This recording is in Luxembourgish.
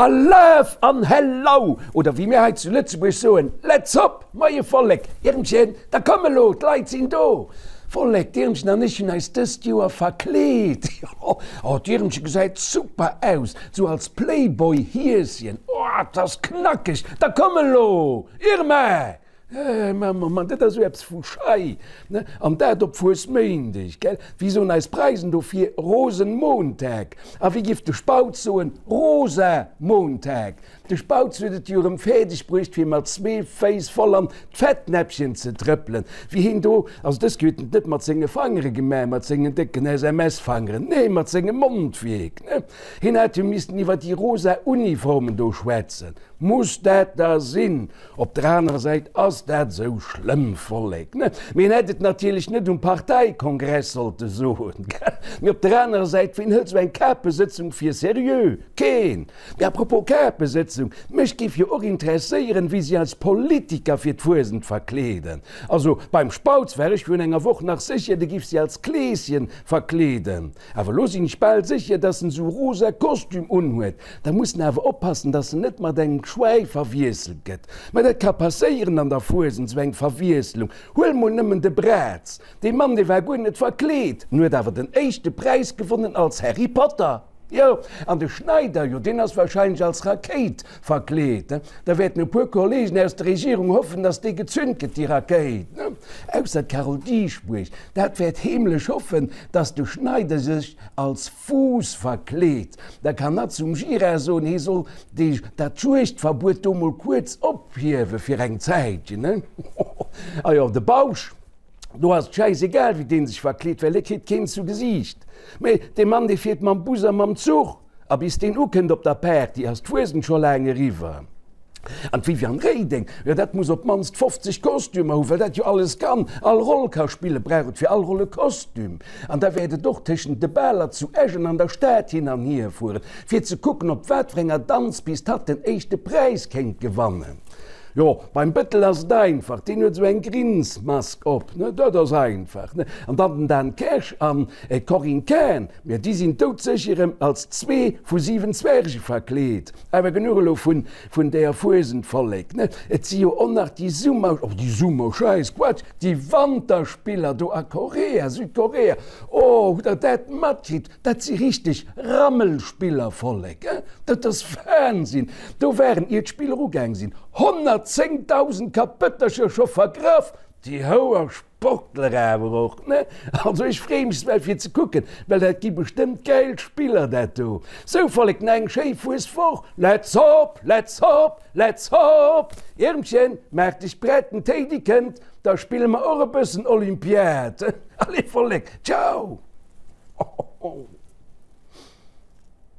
Alaf an Hellau! Oder wéi mir hei zu Lëtzebuerg soen, Let's hop! Moie Vollek! Irmchen, da komm elo, d'Leit sinn do! Vollek, d'Irmchen an ech hunn eis dëst Joer verkleet. Jo, oh, d'Irmchen gesäit super aus, sou als Playboy-Hieschen. Oh, 't ass knackeg! Da komm elo, Irma! Mann, Mann, Mann, dat ass esou eppes vu schei, ne? An dat op Fuesméindeg, gell? Wéi soen eis Preisen dofir? Rosenmontag. A wéi giff de Spautz soen? Rosamontag. De Spautz huet et jo erëm fäerdeg bruecht, fir mat zwee Féiss voll an d'Fettnäppchen ze trëppelen. Wéi hien do, also dës Kéier huet en et net mat senge Fangere gemaach, mat sengen décken SMS-Fangeren, nee, mat sengem Mondwierk, ne? Hien hat jo missten iwwer déi rosa Uniformen do schwätzen. Muss dat da sinn? Op der anerer Säit ass dat esou schlëmm, Vollek, ne? Mee en hätt et natierlech net um Parteikongress sollte soen, gell? Mee op der anerer Säit, ween hëlt esou eng Kapesëtzung fir seriö? Keen! Mee à propos Kapesëtzung, mech géif jo och interesséieren, wéi si eis Politiker fir d'Fuesent verkleeden. Also beim Spautz war ech virun enger Woch nach sécher, de giff si als Kleeschen verkleeden. Awer elo sinn ech bal sécher, dass en sou rosa Kostüm unhuet. Da muss en awer oppassen, dass en net mat engem Schwäi verwiesselt gëtt. Mä dat ka passéieren an der Fuesent, sou eng Verwiesslung. Huel mol nëmmen de Braz. Dee Mann, dee war guer net verkleet, en huet awer den éischte Präis gewonnen als Harry Potter. Jo, an de Schneider, jo, deen ass wahrscheinlech als Rakéit verkleet. Da wäerten e puer Kollegen aus der Regierung hoffen, dass déi gezünt gëtt, déi Rakéit. Ausser d'Carole Dieschbourg, dat wäert heemlech hoffen, dass de Schneider sech als Fuuss verkleet. Da kann hatt zum Gira soen, hie soll déi, dat Juegdverbuet do mol kuerz ophiewe fir eng Zäitchen. A jo, de Bausch. Do ass et schäisegal, wéi dee sech verkleet, well e kritt keen zu Gesiicht. Mee dee Mann, dee fiert mam Bus a mam Zuch, a bis deen ukënnt op der Party, ass d'Fuesent scho laang eriwwer. An d'Viviane Reding, jo, dat muss op d'mannst 50 Kostümer hu, well dat jo alles kann, all Roll ka spillen, brauch et fir all Roll e Kostüm. An da wäert et och tëschent de Baler zu Esch an an der Stad hin an hier fueren, fir ze kucken, op wat fir enger Danzpist hatt den éischte Präis kéint gewannen. Jo, beim Bëttel ass et einfach, deen huet esou eng Grinsmask op, ne, dat ass einfach, ne. An dann den Dan Kersch an d'Corinne Cahen, jo, déi sinn doudsécher erëm als zwee vu 7 Zwerge verkleet. Awer genuch elo vun, vun deeër Fuesent, Vollek, ne. Et si jo och nach déi Summer, oh, déi Summer, Schäiss, Quatsch, déi Wanterspiller do a Korea, Südkorea, oh, hutt der dat matkritt? Dat si richteg Rammelspiller, Vollek, eh? Dat ass Wahnsinn! Do waren, ier d'Spiller ugaang sinn, 110.000 Kapëttercher scho vergraff! Déi houer Sportler awer och, ne? Also ech freeë mech well fir ze kucken, well dat gi bestëmmt gäil Spiller, dat do. Sou, Vollek, nach eng schéi Fueswoch! Let's hop, let's hop, let's hop! Iermchen, maach dech prett, den Téidi kënnt, da spille mer och e bëssen Olympiad. Allez, Vollek, ciao! Ho, ho, ho.